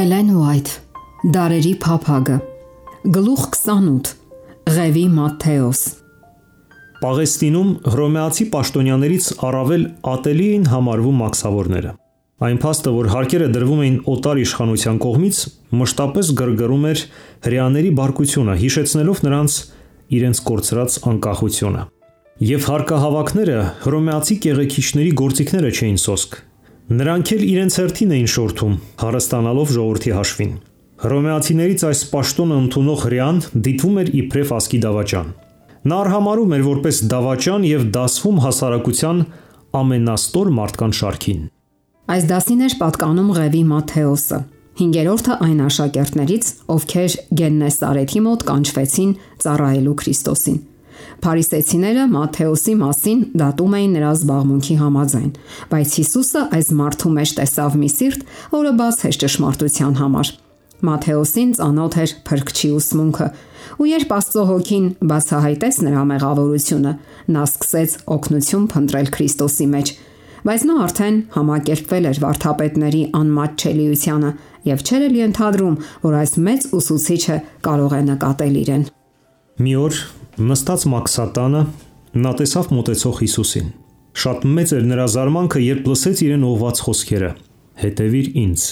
Էլեն Ուայթ, Դարերի փափագը, Գլուխ 28, Ղևի Մատթեոս։ Պաղեստինում հռոմեացի պաշտոնյաներից առավել ատելի էին համարվում մաքսավորները։ Այն փաստը, որ հարկերը դրվում էին օտար իշխանության կողմից, մշտապես գրգռում էր հրեաների բարկությունը, հիշեցնելով նրանց իրենց կորցրած անկախությունը։ Եվ հարկահավաքները հռոմեացի կեղեքիչների գործիքները չէին սոսկ։ Նրանք էլ իրենց հերթին էին շորթում, հարստանալով ժողովրդի հաշվին։ Հռոմեացիներից այս պաշտոնը ընդունող հրեան դիտվում էր իբրև ասկի դավաճան։ Նա արհամարհում էր որպես դավաճան եւ դասվում հասարակության ամենաստոր մարդկանց շարքին։ Այս դասին էր պատկանում Ղևի Մատթեոսը, 5-րդը այն աշակերտներից, ովքեր Գեննեսարեթի մոտ կանչվեցին ծառայելու Քրիստոսին։ Փարիսեցիները Մատթեոսի մասին դատում էին նրա զբաղմունքի համաձայն, բայց Հիսուսը այս մարդու մեջ տեսավ մի սիրտ, որը բաց էր ճշմարտության համար։ Մատթեոսին ծանոթ էր փրկչի ուսմունքը, ու երբ Աստծո հոգին բացահայտեց նրա մեղավորությունը, նա սկսեց օգնություն փնտրել Քրիստոսի մեջ, բայց նա արդեն համակերպվել էր վարդապետների անմատչելիությանը եւ չէր էլ ենթադրում, որ այս մեծ ուսուցիչը կարող է նկատել իրեն։ Մի օր նստած մաքսատանը նա տեսավ մոտեցող Հիսուսին։ Շատ մեծ էր նրա զարմանքը, երբ լսեց իրեն ուղված խոսքերը. «Հետևիր ինձ»։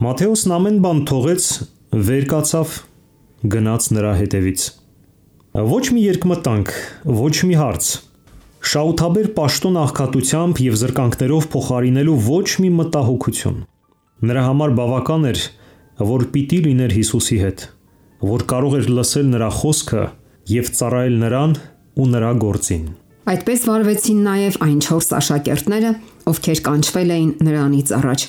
Մատթեոսն ամեն բան թողեց, վեր կացավ, գնաց նրա հետևից։ Ոչ մի երկմտանք, ոչ մի հարց, շահութաբեր պաշտոն աղքատությամբ եւ զրկանքներով փոխարինելու ոչ մի մտահոգություն։ Նրա համար բավական էր, որ պիտի լիներ Հիսուսի հետ, որ կարող էր լսել նրա խոսքը եւ ծառայել նրան ու նրա գործին։ Այդպես վարվեցին նաև այն 4 աշակերտները, ովքեր կանչվել էին նրանից առաջ։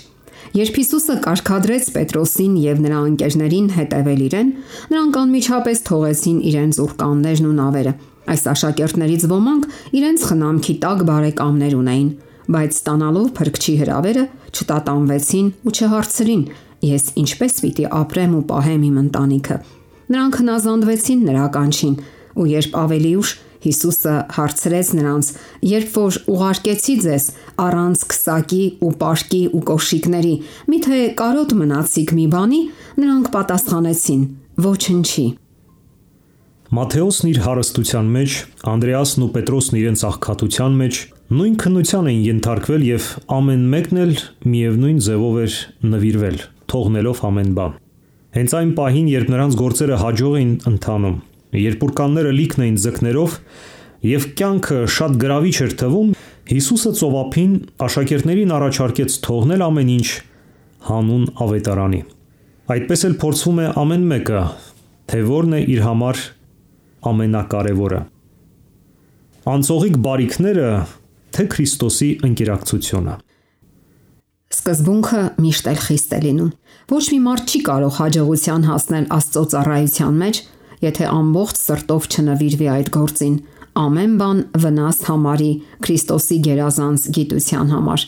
Երբ Հիսուսը կարգադրեց Պետրոսին եւ նրա ընկերներին հետևել իրեն, նրանք անմիջապես թողեցին իրենց ուրկաններն ու նավերը։ Այս աշակերտներից ոմանք իրենց խնամքի տակ բարեկամներ ունեին, բայց ստանալով փրկչի հրավերը չտատանվեցին ու չհարցրին. «Ես ինչպես պիտի ապրեմ ու պահեմ իմ ընտանիքը»։ Նրանք հնազանդվեցին նրա կանչին, ու երբ ավելի ուշ Հիսուսը հարցրեց նրանց. «Երբ որ ուղարկեցի ձեզ առանց քսակի ու պարկի ու կոշիկների, միթե կարոտ մնացիք մի բանի», նրանք պատասխանեցին. «Ոչնչի»։ Մատթեոսն իր հարստության մեջ, Անդրեասն ու Պետրոսն իրենց աղքատության մեջ նույն քննության էին ենթարկվել եւ ամեն մեկն էլ միևնույն ձևով էր նվիրվել, թողնելով ամեն բան։ Հենց այն պահին, երբ նրանց գործերը հաջող էին ընթանում, երբ ուրկանները լիքն էին ձկներով եւ կյանքը շատ գրավիչ էր թվում, Հիսուսը ծովափին աշակերտներին առաջարկեց թողնել ամեն ինչ հանուն ավետարանի։ Այդպես էլ փորձվում է ամեն մեկը, թե որն է իր համար ամենակարևորը։ Անցողիկ բարիքները, թե Քրիստոսի ընկերակցությունը։ Սկզբունքը միշտ էլ խիստ է լինում։ Ոչ մի մարդ չի կարող հաջողության հասնել Աստծո ծառայության մեջ, եթե ամբողջ սրտով չնվիրվի այդ գործին, ամեն բան վնաս համարի Քրիստոսի գերազանց գիտության համար։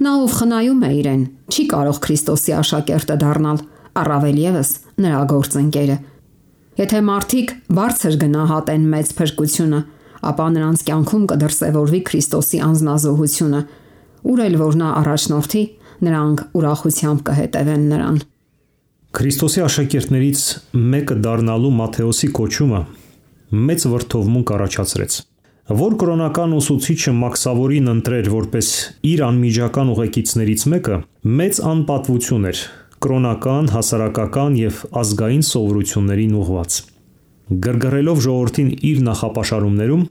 Նա, ով խնայում է իրեն, չի կարող Քրիստոսի աշակերտը դառնալ, առավել եւս նրա գործընկերը։ Եթե մարդիկ բարձր գնահատեն մեծ փրկությունը, ապա նրանց կյանքում կդրսևորվի Քրիստոսի անձնազոհությունը, ուր էլ որ նա առաջնորդի, նրանք ուրախությամբ կհետևեն նրան։ Քրիստոսի աշակերտներից մեկը դառնալու Մատթեոսի կոչումը մեծ վրդովմունք առաջացրեց։ Որ կրոնական ուսուցիչը մաքսավորին ընտրեր որպես իր անմիջական ուղեկիցներից մեկը, մեծ անպատվություն էր կրոնական, հասարակական եւ ազգային սովորություններին ուղված։ Գրգռելով ժողովրդին իր նախապաշարումներում,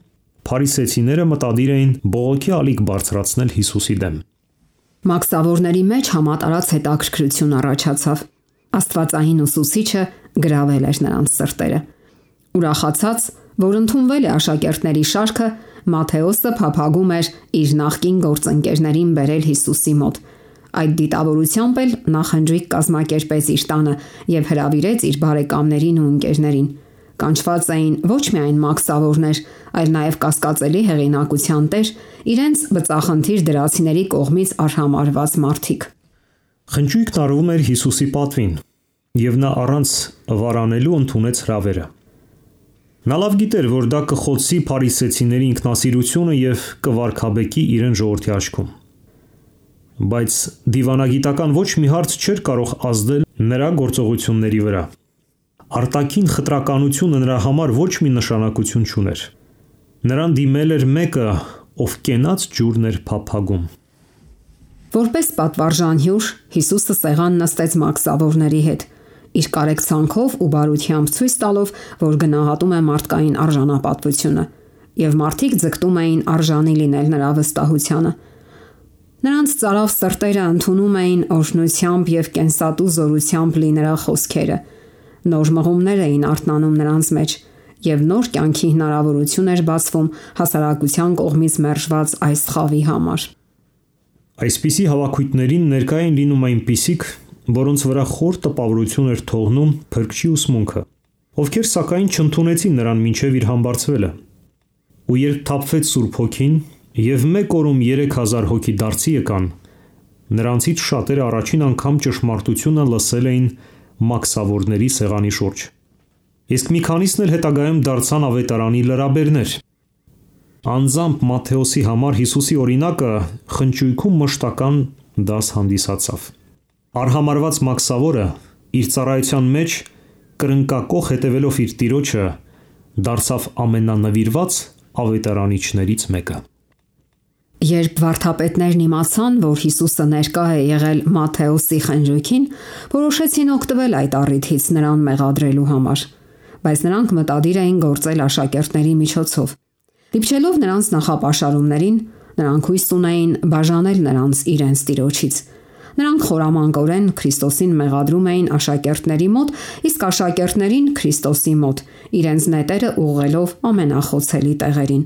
փարիսեցիները մտադիր էին բողոքի ալիք բարձրացնել Հիսուսի դեմ։ Մաքսավորների մեջ համատարած հետաքրքրություն առաջացավ։ Աստվածային ուսուցիչը գրավել էր նրանց սրտերը։ Ուրախացած, որ ընդունվել է աշակերտների շարքը, Մատթեոսը փափագում էր իր նախկին գործընկերներին բերել Հիսուսի մոտ։ Այդ դիտավորությամբ էլ նա խնջույք կազմակերպեց իր տանը եւ հրավիրեց իր բարեկամներին ու ընկերներին։ Կանչված էին ոչ միայն մաքսավորներ, այլ նաև կասկածելի հեղինակության տեր, իրենց բծախնդիր դրացիների կողմից արհամարհված մարդիկ։ Խնջույքն արվում էր Հիսուսի պատվին, եւ նա առանց վարանելու ընդունեց հրավերը։ Նա լավ գիտեր, որ դա կխոցի փարիսեցիների ինքնասիրությունը եւ կվարքաբեկի իրեն ժողովրդի աչքում։ բայց դիվանագիտական ոչ մի հարց չէր կարող ազդել նրա գործողությունների վրա։ Արտաքին խտրականությունը նրա համար ոչ մի նշանակություն չուներ։ Նրան դիմել էր մեկը, ով կենաց ջուրն էր փափագում։ Որպես պատվարժան հյուր, Հիսուսը սեղան նստեց մաքսավորների հետ, իր կարեկցանքով ու բարությամբ ցույց տալով, որ գնահատում է մարդկային արժանապատվությունը, եւ մարդիկ ձգտում էին արժանի լինել նրա վստահությանը։ Նրանց ծարավ սրտերը ընդունում էին օրհնությամբ եւ կենսատու զորությամբ լի նրա խոսքերը։ Նոր մղումներ էին արթնանում նրանց մեջ, եւ նոր կյանքի հնարավորություն էր բացվում հասարակության կողմից մերժված այս խավի համար։ Այսպիսի հավաքույթներին ներկա էին լինում այնպիսիք, որոնց վրա խոր տպավորություն էր թողնում փրկչի ուսմունքը, ովքեր սակայն չընդունեցին նրան մինչև իր համբարձվելը։ Ու երբ թափվեց Սուրբ Հոգին եւ մեկ օրում 3000 հոգի դարձի եկան, նրանցից շատերը առաջին անգամ ճշմարտությունը լսել էին մաքսավորների սեղանի շուրջ։ Իսկ մի քանիսն էլ հետագայում դարձան ավետարանի լրաբերներ։ Անձամբ Մատթեոսի համար Հիսուսի օրինակը խնճույքում մշտական դաս հանդիսացավ։ Արհամարված մաքսավորը իր ծառայության մեջ կրնկակող հետևելով իր տիրոջը դարձավ ամենանվիրված ավետարանիչներից մեկը։ Երբ վարդապետներն իմացան, որ Հիսուսը ներկա է եղել Մատթեոսի խնջույքին, որոշեցին օգտվել այդ առիթից նրան մեղադրելու համար, բայց նրանք մտադիր էին գործել աշակերտների միջոցով։ Դիպչելով նրանց նախապաշարումներին, նրանք հույս ունեին բաժանել նրանց իրենց տիրոջից։ Նրանք խորամանկորեն Քրիստոսին մեղադրում էին աշակերտների մոտ, իսկ աշակերտներին Քրիստոսի մոտ, իրենց նետերը ուղղելով ամենախոցելի տեղերին։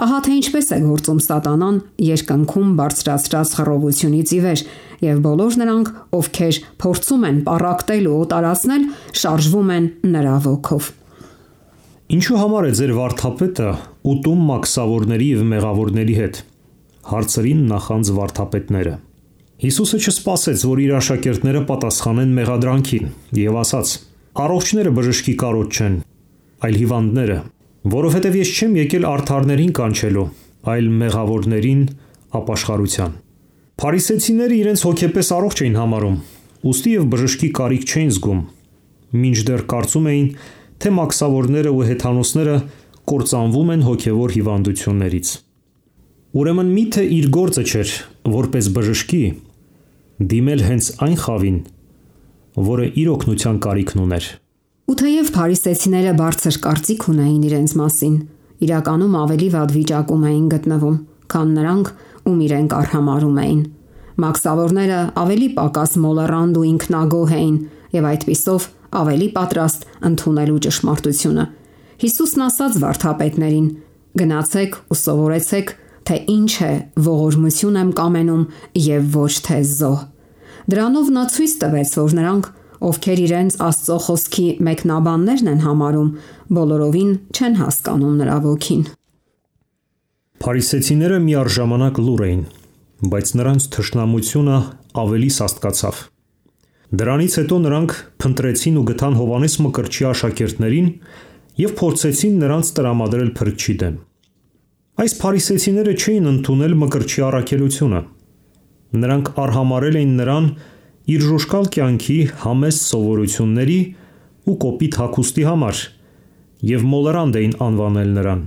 Ահա թե ինչպես է գործում Սատանան երկնքում բարձրացրած խռովությունից ի վեր, եւ բոլոր նրանք, ովքեր փորձում են պառակտել ու օտարացնել, շարժվում են նրա ոգով։ Ինչու համար է ձեր վարդապետը ուտում մաքսավորների եւ մեղավորների հետ, հարցրին նախանձ վարդապետները։ Հիսուսը չսպասեց, որ իր աշակերտները պատասխանեն մեղադրանքին, եւ ասաց. «Առողջները բժշկի կարոտ չեն, այլ հիվանդները, որովհետև ես չեմ եկել արդարներին կանչելու, այլ մեղավորներին ապաշխարության»։ Փարիսեցիները իրենց հոգեպես առողջ էին համարում, ուստի եւ բժշկի կարիք չէին զգում, մինչդեռ կարծում էին, թե մաքսավորները ու հեթանոսները կործանվում են հոգևոր հիվանդություններից։ Ուրեմն միթե իր գործը չէր, որպես բժշկի, դիմել հենց այն խավին, որը իր օգնության կարիքն ուներ։ Ու թեև փարիսեցիները բարձր կարծիք ունեին իրենց մասին, իրականում ավելի վատ վիճակում էին գտնվում, քան նրանք, ում իրենք արհամարհում էին։ Մաքսավորները ավելի պակաս մոլեռանդ ու ինքնագոհ էին եւ այդպիսով ավելի պատրաստ ընդունելու ճշմարտությունը։ Հիսուսն ասաց վարդապետներին. «Գնացեք ու սովորեցեք, թե ինչ է ողորմություն եմ կամենում եւ ոչ թե զոհ»։ Դրանով նա ցույց տվեց, որ նրանք, ովքեր իրենց Աստծո խոսքի մեկնաբաններն են համարում, բոլորովին չեն հասկանում նրա ոգին։ Փարիսեցիները միառժամանակ լուռ էին, բայց նրանց թշնամությունը ավելի սաստկացավ։ Դրանից հետո նրանք փնտրեցին ու գտան Հովանես Մկրտչի աշակերտներին եւ փորձեցին նրանց տրամադրել Փրկչի դեմ։ Այս փարիսեցիները չէին ընդունել Մկրտչի առաքելությունը։ Նրանք արհամարել էին նրան իր ժուժկալ կյանքի համեստ սովորությունների ու կոպիտ հագուստի համար եւ մոլեռանդ էին անվանել նրան։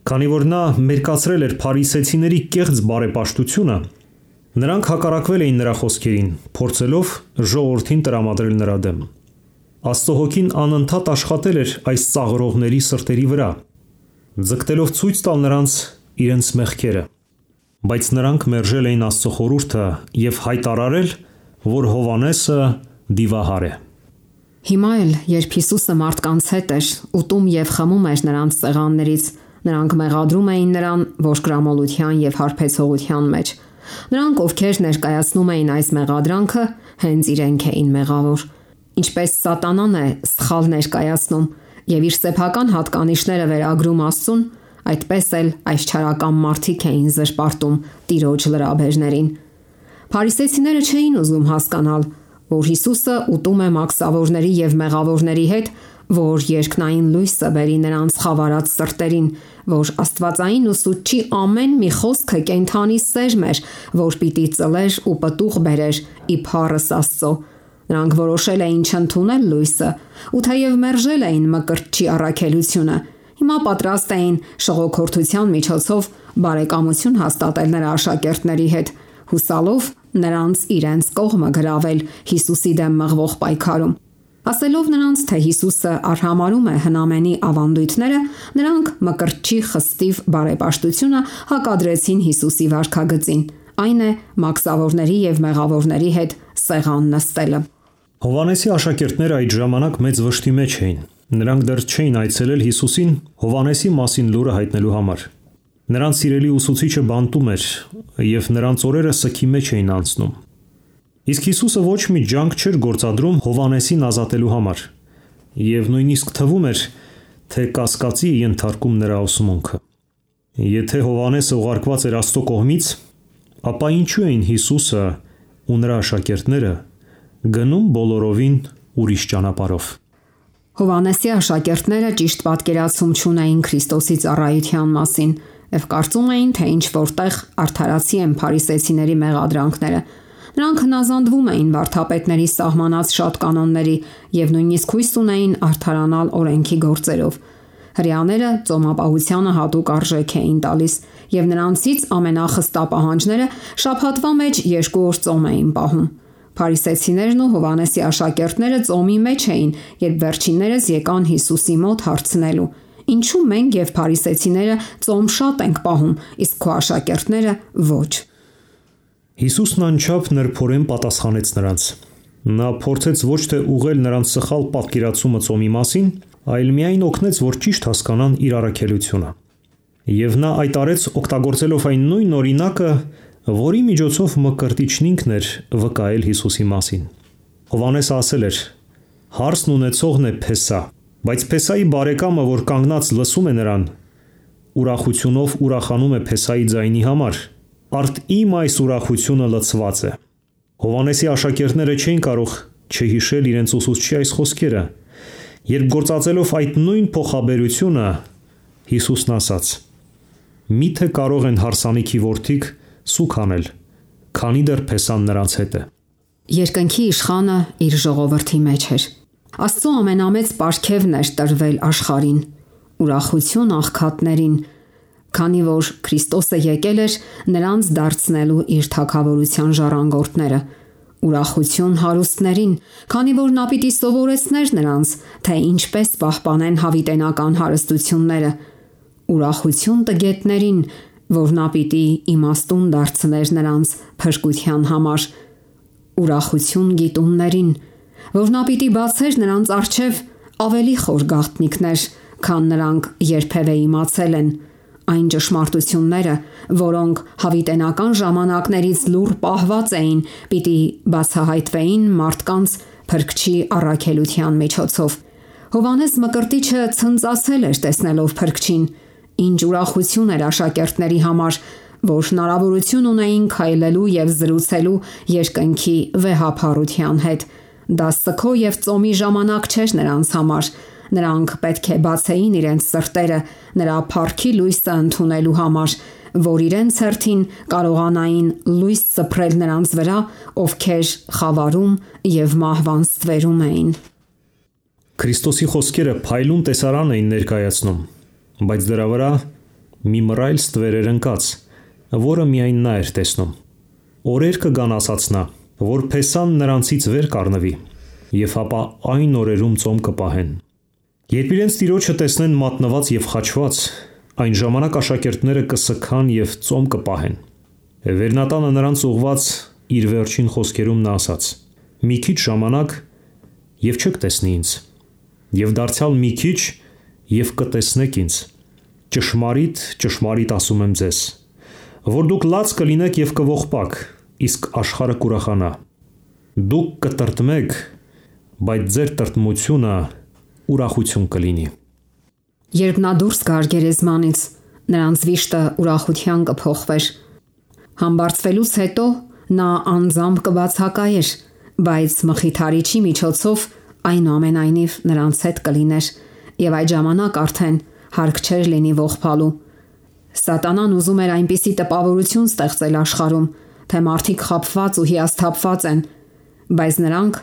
Քանի որ նա մերկացրել էր փարիսեցիների կեղծ բարեպաշտությունը, նրանք հակառակվել էին նրա խոսքերին, փորձելով ժողովրդին տրամադրել նրա դեմ։ Աստծո հոգին անընդհատ աշխատել էր այս ծաղրողների սրտերի վրա, ձգտելով ցույց տալ նրանց իրենց մեղքերը, բայց նրանք մերժել էին Աստծո խորհուրդը եւ հայտարարել, որ Հովանեսը դիվահար է։ Հիմա էլ, երբ Հիսուսը մարդկանց հետ էր, ուտում եւ խմում էր նրանց սեղաններից, նրանք մեղադրում էին նրան ողջամոլության եւ հարբեցողության մեջ։ Նրանք, ովքեր ներկայացնում էին այս մեղադրանքը, հենց իրենք էին մեղավոր։ Ինչպես Սատանան է սխալ ներկայացնում եւ իր սեփական հատկանիշները վերագրում Աստծուն, այդպես էլ այս չարական մարդիկ էին զրպարտում Տիրոջ լրաբերներին։ Փարիսեցիները չէին ուզում հասկանալ, որ Հիսուսը ուտում է մաքսավորների եւ մեղավորների հետ, որ երկնային լույսը բերի նրանց խավարած սրտերին, որ աստվածային ուսուցչի ամեն մի խոսքը կենթանի սերմ էր, որ պիտի ծլեր ու պտուղ բերեր իբարս Աստծո։ Նրանք որոշել էին չընդունել լույսը, ու թեև մերժել էին մկրտչի առաքելությունը, հիմա պատրաստ էին շողոքորթության միջոցով բարեկամություն հաստատել նրա աշակերտների հետ, հուսալով նրանց իրենց կողմը գրավել Հիսուսի դեմ մղվող պայքարում։ Ասելով նրանց, թե Հիսուսը արհամարում է հնամենի ավանդույթները, նրանք մկրտչի խստիվ բարեպաշտությունը հակադրեցին Հիսուսի վարքագծին, այն է մաքսավորների եւ մեղավորների հետ սեղան նստելը։ Հովհաննեսի աշակերտները այդ ժամանակ մեծ վշտի մեջ էին։ Նրանք դեռ չէին այցելել Հիսուսին Հովհաննեսի մասին լուրը հայտնելու համար։ Նրանց սիրելի ուսուցիչը բանտում էր եւ նրանց օրերը սքի մեջ էին անցնում։ Իսկ Հիսուսը ոչ մի ջանք չէր գործադրում Հովհաննեսին ազատելու համար, եւ նույնիսկ թվում էր, թե կասկածի ենթարկում նրա ուսմունքը։ Եթե Հովհաննեսը ուղարկված էր Աստծո կողմից, ապա ինչու էին Հիսուսը ու նրա աշակերտները գնում բոլորովին ուրիշ ճանապարհով։ Հովհաննեսի աշակերտները ճիշտ պատկերացում չունեին Քրիստոսի ծառայության մասին եւ կարծում էին, թե ինչ որտեղ արդարացի են փարիսեցիների մեղադրանքները։ Նրանք հնազանդվում էին վարդապետների սահմանած շատ կանոնների եւ նույնիսկ հույս ունեին արդարանալ օրենքի գործերով։ Հրեաները ծոմապահությանը հատուկ արժեք էին տալիս եւ նրանցից ամենախստա պահանջները շաբաթվա մեջ 2 օր ծոմ էին պահում։ Փարիսեցիներն ու Հովհաննեսի աշակերտները ծոմի մեջ էին, երբ վերջիններս եկան Հիսուսի մոտ հարցնելու. «Ինչու մենք եւ փարիսեցիները ծոմ շատ ենք պահում, իսկ քո աշակերտները ոչ»։ Հիսուսն անչափ նրբորեն պատասխանեց նրանց։ Նա փորձեց ոչ թե ուղղել նրանց սխալ պատկերացումը ծոմի մասին, այլ միայն օգնեց, որ ճիշտ հասկանան իր առաքելությունը։ Եվ նա այդ արեց օգտագործելով այն նույն օրինակը, որի միջոցով մկրտիչն ինքն էր վկայել Հիսուսի մասին։ Հովհաննեսը ասել էր. «Հարսն ունեցողն է Փեսա, բայց Փեսայի բարեկամը, որ կանգնած լսում է նրան, ուրախությունով ուրախանում է Փեսայի ձայնի համար, արդ իմ այս ուրախությունը լցված է»։ Հովհաննեսի աշակերտները չէին կարող չհիշել իրենց ուսուցչի այս խոսքերը, երբ գործածելով այդ նույն փոխաբերությունը Հիսուսն ասաց. «Միթե կարող են հարսանիքի որդիկ սուք անել, քանի դեռ Փեսան նրանց հետ է»։ Երկնքի իշխանը իր ժողովրդի մեջ էր։ Աստծո ամենամեծ պարգևն էր տրվել աշխարհին, ուրախություն աղքատներին, քանի որ Քրիստոսը եկել էր նրանց դարձնելու իր թագավորության ժառանգորդները, ուրախություն հարուստներին, քանի որ նա պիտի սովորեցներ նրանց, թե ինչպես պահպանեն հավիտենական հարստությունները, ուրախություն տգետներին, որ նա պիտի իմաստուն դարձներ նրանց փրկության համար, ուրախություն գիտուններին, որ նա պիտի բացեր նրանց առջև ավելի խոր գաղտնիքներ, քան նրանք երբևէ իմացել են, այն ճշմարտությունները, որոնք հավիտենական ժամանակներից լուռ պահված էին, պիտի բացահայտվեին մարդկանց Փրկչի առաքելության միջոցով։ Հովհաննես Մկրտիչը ցնծացել էր տեսնելով Փրկչին, ինչ ուրախություն էր աշակերտների համար, որ հնարավորություն ունեին քայլելու եւ զրուցելու երկնքի վեհափառության հետ։ Դա սգո եւ ծոմի ժամանակ չէր նրանց համար։ Նրանք պետք է բացեին իրենց սրտերը նրա փառքի լույսը ընդունելու համար, որ իրենց հերթին կարողանային լույս սփռել նրանց վրա, ովքեր խավարում եւ մահվան ստվերում էին։ Քրիստոսի խոսքերը փայլուն տեսարան էին ներկայացնում, բայց դրա վրա մի մռայլ ստվեր էր ընկած, որը միայն նա էր տեսնում։ Օրեր կգան, ասաց նա, որ Փեսան նրանցից վեր կառնվի, եւ ապա այն օրերում ծոմ կպահեն։ Երբ իրենց Տիրոջը տեսնեն մատնված եւ խաչված, այն ժամանակ աշակերտները կսքան եւ ծոմ կպահեն։ Վերնատանը նրանց ուղված իր վերջին խոսքերում նա ասաց. «Մի քիչ ժամանակ եւ չեք տեսնի ինձ, եւ դարձյալ մի քիչ եւ կտեսնեք ինձ։ Ճշմարիտ, ճշմարիտ ասում եմ ձեզ, որ դուք լաց կլինեք եւ կողպաք, իսկ աշխարհը կուրախանա։ Դուք կտրտմեք, բայց ձեր տրտմությունը ուրախություն կլինի»։ Երբ նա դուրս գար գերեզմանից, նրանց վիշտը ուրախության կփոխվեր։ Համբարձվելուց հետո նա անձամբ կբացակայեր, բայց մխիթարիչի միջոցով այնուամենայնիվ նրանց հետ կլիներ եւ այդ ժամանակ արդեն հարկ չէր լինի ողբալու։ Սատանան ուզում էր այնպիսի տպավորություն ստեղծել աշխարհում, թե մարդիկ խաբված ու հիասթափված են, բայց նրանք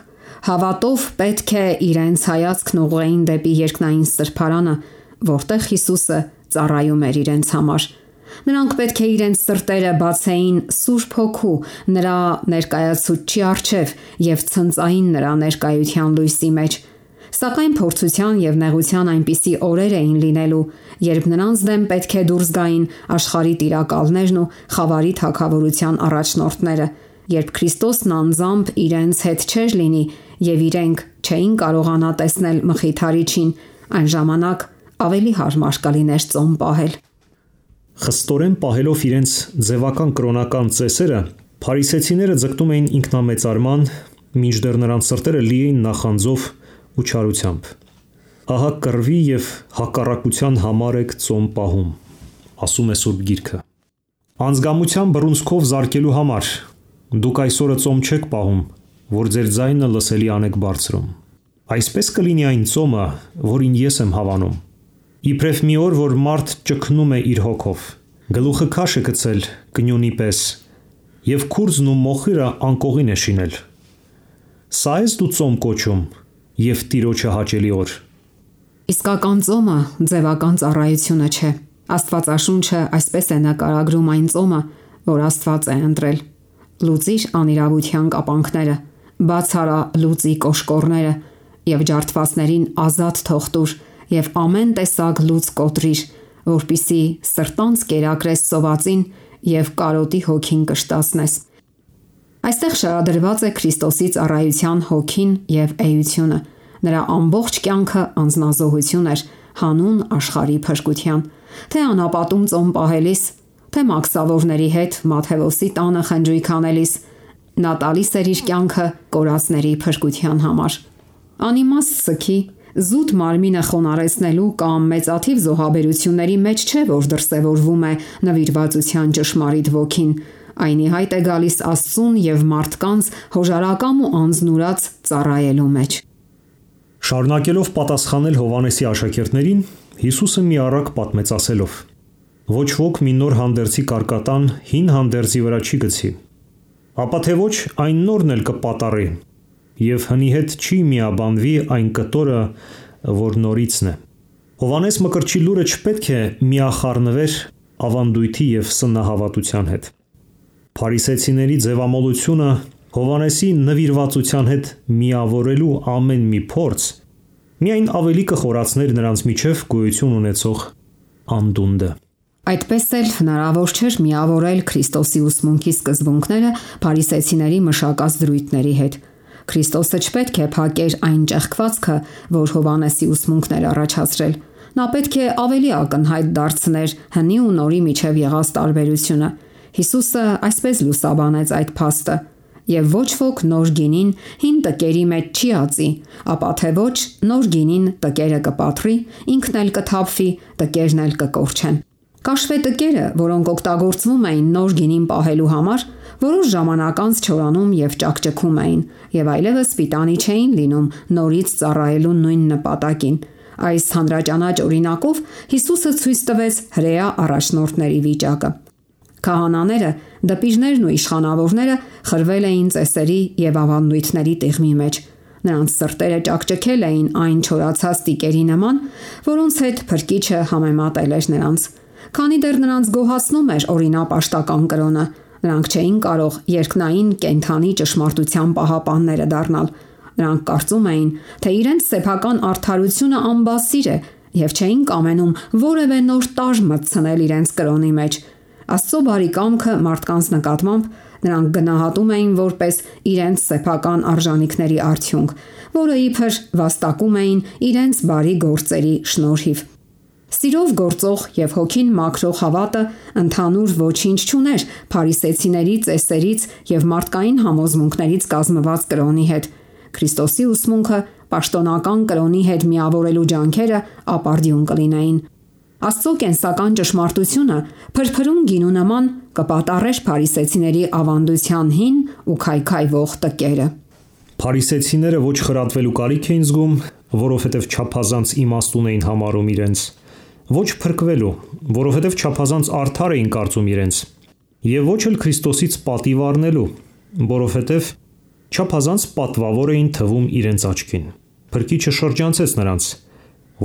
հավատով պետք է իրենց հայացքն ուղղեին դեպի երկնային սրբարանը, որտեղ Հիսուսը ծառայում էր իրենց համար։ Նրանք պետք է իրենց սրտերը բացեին Սուրբ Հոգու նրա ներկայացուցչի առջև եւ ցնծային նրա ներկայության լույսի մեջ։ Սակայն փորձության եւ նեղության այնպիսի օրեր էին լինելու, երբ նրանց դեմ պետք է դուրս գային աշխարհի տիրակալներն ու խավարի թագավորության առաջնորդները, երբ Քրիստոսն անձամբ իրենց հետ չէր լինի եւ իրենք չէին կարողանա տեսնել մխիթարիչին, այն ժամանակ ավելի հարմար կլիներ ծոմ պահել։ Խստորեն պահելով իրենց ձևական կրոնական ծեսերը, փարիսեցիները ձգտում էին ինքնամեծարման, մինչդեռ նրանց սրտերը լի էին նախանձով ու չարությամբ։ Ահա կռվի եւ հակառակության համար եք ծոմ պահում, ասում է Սուրբ Գիրքը։ Անձգամության բռունցքով զարկելու համար դուք այսօրը ծոմ չեք պահում, որ ձեր ձայնը լսելի անեք բարձրում։ Այսպես կլինի այն ծոմը, որին ես եմ հավանում։ Իբրև մի օր, որ մարդ ճգնում է իր հոգով, գլուխը քաշ է գցել կնյունի պես, եւ քուրձն ու մոխիրը անկողին է շինել։ Սա ես դու ծոմ կոչում եւ Տիրոջը հաճելի օր։ Իսկական ծոմը ձևական ծառայությունը չէ։ Աստվածաշունչը այսպես է նկարագրում այն ծոմը, որ Աստված է ընտրել։ Լուծիր անիրավության կապանքները, բաց արա լուծի կոշկորները եւ ջարդվածներին ազատ թող տուր եւ ամեն տեսակ լուծ կոտրիր, որպիսի սրտանց կերակրես սովածին եւ կարոտի հոգին կշտացնես։ Այստեղ շարադրված է Քրիստոսի ծառայության հոգին եւ էությունը։ Նրա ամբողջ կյանքը անձնազոհություն էր հանուն աշխարհի փրկության, թե անապատում ծոմ պահելիս, թե մաքսավորների հետ Մատթեոսի տանը խնջույք անելիս, նա տալիս էր իր կյանքը կորածների փրկության համար։ Անիմաստ սքի զուտ մարմինը խոնարհեցնելու կամ մեծաթիվ զոհաբերությունների մեջ չէ, որ դրսևորվում է նվիրվածության ճշմարիտ ոգին, այնի հայտ է գալիս Աստծուն եւ մարդկանց հոժարակամ ու անձնուրաց ծառայելու մեջ։ Շարունակելով պատասխանել Հովանեսի աշակերտներին, Հիսուսը մի առակ պատմեց ասելով. Ոչ ոք մի նոր հանդերձի կարկատան հին հանդերձի վրա չի գցի, ապա թե ոչ այն նորն էլ կպատառի, եւ հնի հետ չի միաբանվի այն կտորը, որ նորիցն է։ Հովանես Մկրտչի լուրը չպետք է միախառնվեր ավանդույթի եւ սննահավատության հետ։ Փարիսեցիների ձևամոլությունը Հովանեսի նվիրվածության հետ միավորելու ամեն մի փորձ միայն ավելի կխորացներ նրանց միջև գոյություն ունեցող անդունդը։ Այդպես էլ հնարավոր չէր միավորել Քրիստոսի ուսմունքի սկզբունքները փարիսեցիների մշակած դրույթների հետ։ Քրիստոսը չպետք է փակեր այն ճեղքվածքը, որ Հովանեսի ուսմունքն էր առաջացրել։ Նա պետք է ավելի ակնհայտ դարձներ հնի ու նորի միջև եղած տարբերությունը։ Հիսուսը այսպես լուսաբանեց այդ փաստը. «Եվ ոչ ոք նոր գինին հին տկերի մեջ չի ածի, ապա թե ոչ նոր գինին տկերը կպատրի, ինքն էլ կթափվի, տկերն էլ կկորչեն»։ Կաշվե տկերը, որոնք օգտագործվում էին նոր գինին պահելու համար, որոշ ժամանակ անց չորանում եւ ճակճկում էին, եւ այլևս պիտանի չէին լինում նորից ծառայելու նույն նպատակին։ Այս հանրաճանաչ օրինակով Հիսուսը ցույց տվեց հրեա առաջնորդների վիճակը։ Քահանաները, դպիժներն ու իշխանավորները խրվել էին ծեսերի եւ ավանդույթների տիղմի մեջ։ Նրանց սրտերը ճակճկել էին այն չորացած տիկերի նման, որոնց հետ Փրկիչը համեմատել էր նրանց։ Քանի դեռ նրանց գոհացնում էր օրինապաշտական կրոնը, նրանք չէին կարող երկնային կենթանի ճշմարտության պահապանները դառնալ։ Նրանք կարծում էին, թե իրենց սեփական արդարությունը անբասիր է եւ չէին կամենում որևէ նոր տարր մտցնել իրենց կրոնի մեջ։ Աստծո բարի կամքը մարդկանց նկատմամբ նրանք գնահատում էին որպես իրենց սեփական արժանինքների արդյունք, որը իբր վաստակում էին իրենց բարի գործերի շնորհիվ։ Սիրով գործող եւ հոգին մաքրող հավատը ընդհանուր ոչինչ չուներ փարիսեցիների ծեսերից եւ մարդկային համոզմունքներից կազմված կրոնի հետ։ Քրիստոսի ուսմունքը պաշտոնական կրոնի հետ միավորելու ջանքերը ապարդյուն կլինեին։ Աստծո կենսական ճշմարտությունը փրփրուն գինու նման կպատառեր փարիսեցիների ավանդության հին ու քայքայվող տկերը։ Փարիսեցիները ոչ խրատվելու կարիք էին զգում, որովհետև չափազանց իմաստուն էին համարում իրենց, ոչ փրկվելու, որովհետև չափազանց արդար էին կարծում իրենց, եւ ոչ էլ Քրիստոսից պատիվ առնելու, որովհետև չափազանց պատվավոր էին թվում իրենց աչքին։ Փրկիչը շրջանցեց նրանց,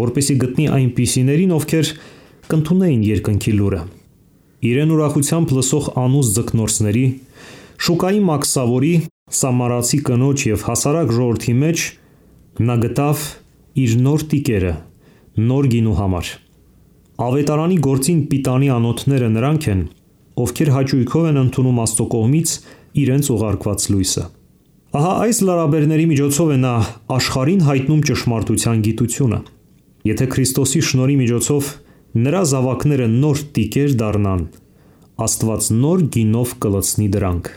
որպեսզի գտնի այնպիսիներին, ովքեր կընդունեին երկնքի լուրը։ Իրեն ուրախությամբ լսող անուս ձկնորսների, շուկայի մաքսավորի, սամարացի կնոջ եւ հասարակ ժողովրդի մեջ նա գտավ իր նոր տիկերը, նոր գինու համար։ Ավետարանի գործին պիտանի անոթները նրանք են, ովքեր հաճույքով են ընդունում Աստծո կողմից իրենց ուղարկված լույսը։ Ահա այս լարաբերների միջոցով է նա աշխարհին հայտնում ճշմարտության գիտությունը։ Եթե Քրիստոսի շնորհի միջոցով նրա զավակները նոր տիկեր դառնան, Աստված նոր գինով կլցնի դրանք։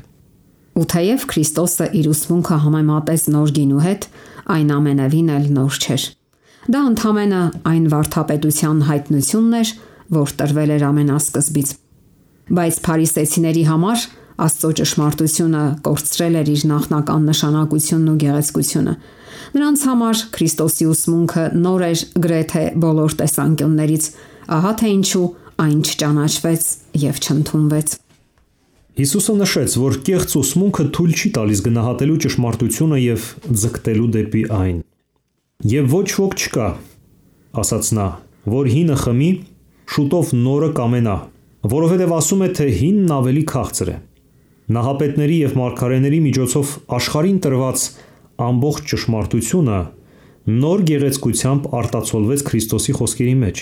Ու թեև Քրիստոսը իր ուսմունքը համեմատեց նոր գինու հետ, այն ամենևին էլ նոր չէր։ Դա ընդհանրապես այն վարդապետության հայտնությունն էր, որ տրվել էր ամենասկզբից։ Բայց փարիսեցիների համար Աստծո ճշմարտությունը կորցրել էր իր նախնական նշանակությունն ու գեղեցկությունը։ Նրանց համար Քրիստոսի ուսմունքը նոր էր գրեթե բոլոր տեսանկյուններից, ահա թե ինչու այն չճանաչվեց եւ չընդունվեց։ Հիսուսը նշեց, որ կեղծ ուսմունքը թույլ չի տալիս գնահատելու ճշմարտությունը եւ ձգտելու դեպի այն։ Եվ ոչ ոք չկա, ասաց նա, որ հինը խմի, շուտով նորը կամենա, որովհետև ասում է, թե հինն ավելի քաղցր է։ Նահապետների եւ մարգարեների միջոցով աշխարհին տրված ամբողջ ճշմարտությունը նոր գեղեցկությամբ արտացոլվեց Քրիստոսի խոսքերի մեջ,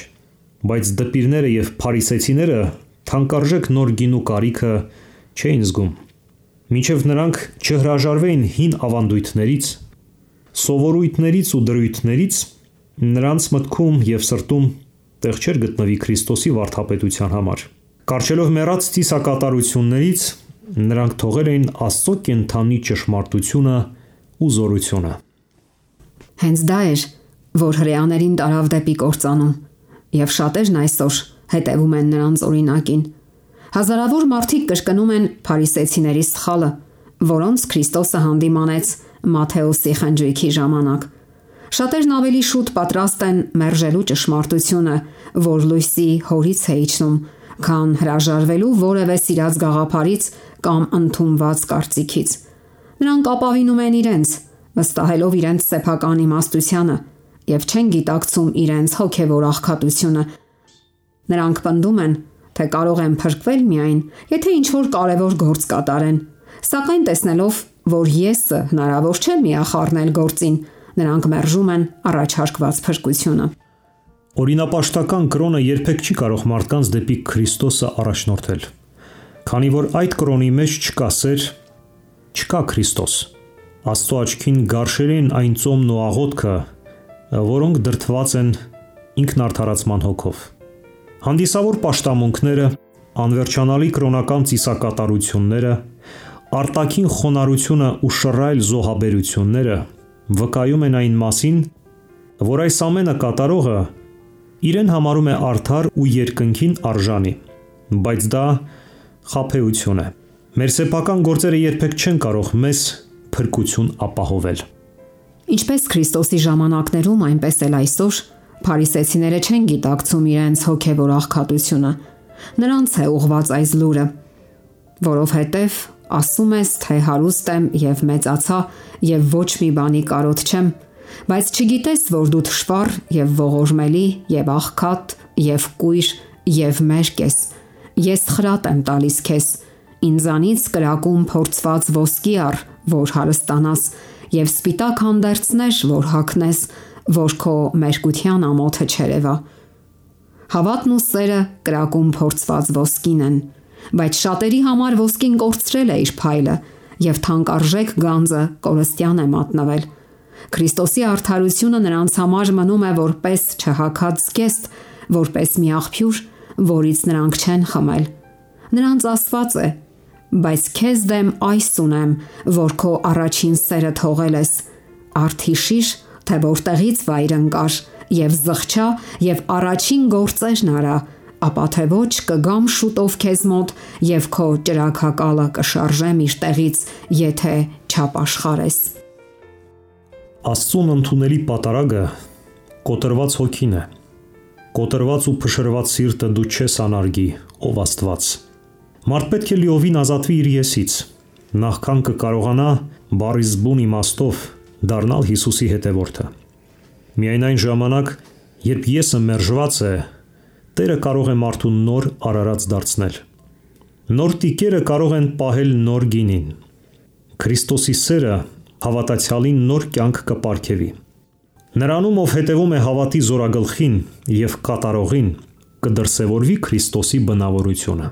բայց դպիրները եւ փարիսեցիները թանկարժեք նոր գինու կարիքը չէին զգում, մինչև նրանք չհրաժարվեին հին ավանդույթներից, սովորույթներից ու դրույթներից, նրանց մտքում եւ սրտում տեղ չէր գտնվի Քրիստոսի վարդապետության համար։ Կարճելով մեռած ծիսակատարություններից նրանք թողել էին Աստծո կենթանի ճշմարտությունը ու զորությունը։ Հենց դա էր, որ հրեաներին տարավ դեպի կործանում, եւ շատերն այսօր հետևում են նրանց օրինակին։ Հազարավոր մարդիկ կրկնում են փարիսեցիների սխալը, որոնց Քրիստոսը հանդիմանեց Մատթեոսի խնջույքի ժամանակ։ Շատերն ավելի շուտ պատրաստ են մերժելու ճշմարտությունը, որ լույսի հորից է իջնում, քան հրաժարվելու որևէ սիրած գաղափարից կամ ընդունված կարծիքից։ Նրանք ապավինում են իրենց, վստահելով իրենց սեփական իմաստությանը եւ չեն գիտակցում իրենց հոգեվոր աղքատությունը։ Նրանք պնդում են, թե կարող են փրկվել միայն, եթե ինչ-որ կարևոր գործ կատարեն, սակայն տեսնելով, որ եսը հնարավոր չէ միախառնել գործին, նրանք մերժում են առաջարկված փրկությունը։ Օրինապաշտական կրոնը երբեք չի կարող մարդկանց դեպի Քրիստոսը առաջնորդել, քանի որ այդ կրոնի մեջ չկա սեր, չկա Քրիստոս։ Աստծո աչքին գարշերին այն ծոմն ու աղոթքը, որոնք դրդված են ինքնարդարացման հոգով։ Հանդիսավոր պաշտամունքները, անվերջանալի կրոնական ծիսակատարությունները, արտաքին խոնարհությունը ու շռայլ զոհաբերությունները վկայում են այն մասին, որ այս ամենը կատարողը իրեն համարում է արդար ու երկնքին արժանի, բայց դա խաբեություն է։ Մեր սեփական գործերը երբեք չեն կարող մեզ փրկություն ապահովել։ Ինչպես Քրիստոսի ժամանակներում, այնպես էլ այսօր փարիսեցիները չեն գիտակցում իրենց հոգևոր աղքատությունը։ Նրանց է ուղված այս լուրը, որովհետև ասում ես, թե հարուստ եմ եւ մեծացա եւ ոչ մի բանի կարոտ չեմ, բայց չգիտես, որ դու թշվառ եւ ողորմելի եւ աղքատ եւ կույր եւ մերկ ես։ Ես խրատ եմ տալիս քեզ, ինձանից կրակում փորձված ոսկի առ, որ հարստանաս, եւ սպիտակ հանդերձներ, որ հագնես, որ քո մերկության ամոթը չերևա։ Հավատն ու սերը կրակում փորձված ոսկին են, բայց շատերի համար ոսկին կորցրել է իր փայլը եւ թանկարժեք գանձը կորստյան է մատնվել։ Քրիստոսի արդարությունը նրանց համար մնում է որպես չհագած զգեստ, որպես մի աղբյուր, որից նրանք չեն խմել։ Նրանց Աստված է, բայց քեզ դեմ այս ունեմ, որ քո առաջին սերը թողել ես, արդ հիշիր, թե որտեղից վայր ընկար, եւ զղջա եւ առաջին գործերն արա, ապա թե ոչ կգամ շուտով քեզ մոտ եւ քո ճրագակալը կշարժեմ իր տեղից, եթե չապաշխարես։ Աստծուն ընդունելի պատարագը կոտրված հոգին է։ Կոտրված ու փշրված սիրտը դու չես անարգի, ով Աստված։ Մարդ պետք է լիովին ազատվի իր եսից, նախքան կկարողանա բառի զբուն իմաստով դառնալ Հիսուսի հետևորդը։ Միայն այն ժամանակ, երբ եսը մերժված է, Տերը կարող է մարդուն նոր արարած դարձնել։ Նոր տիկերը կարող են պահել նոր գինին։ Քրիստոսի սերը հավատացյալին նոր կյանք կպարգևի։ Նրանում, ով հետևում է հավատի զորագլխին և կատարողին, կդրսևորվի Քրիստոսի բնավորությունը։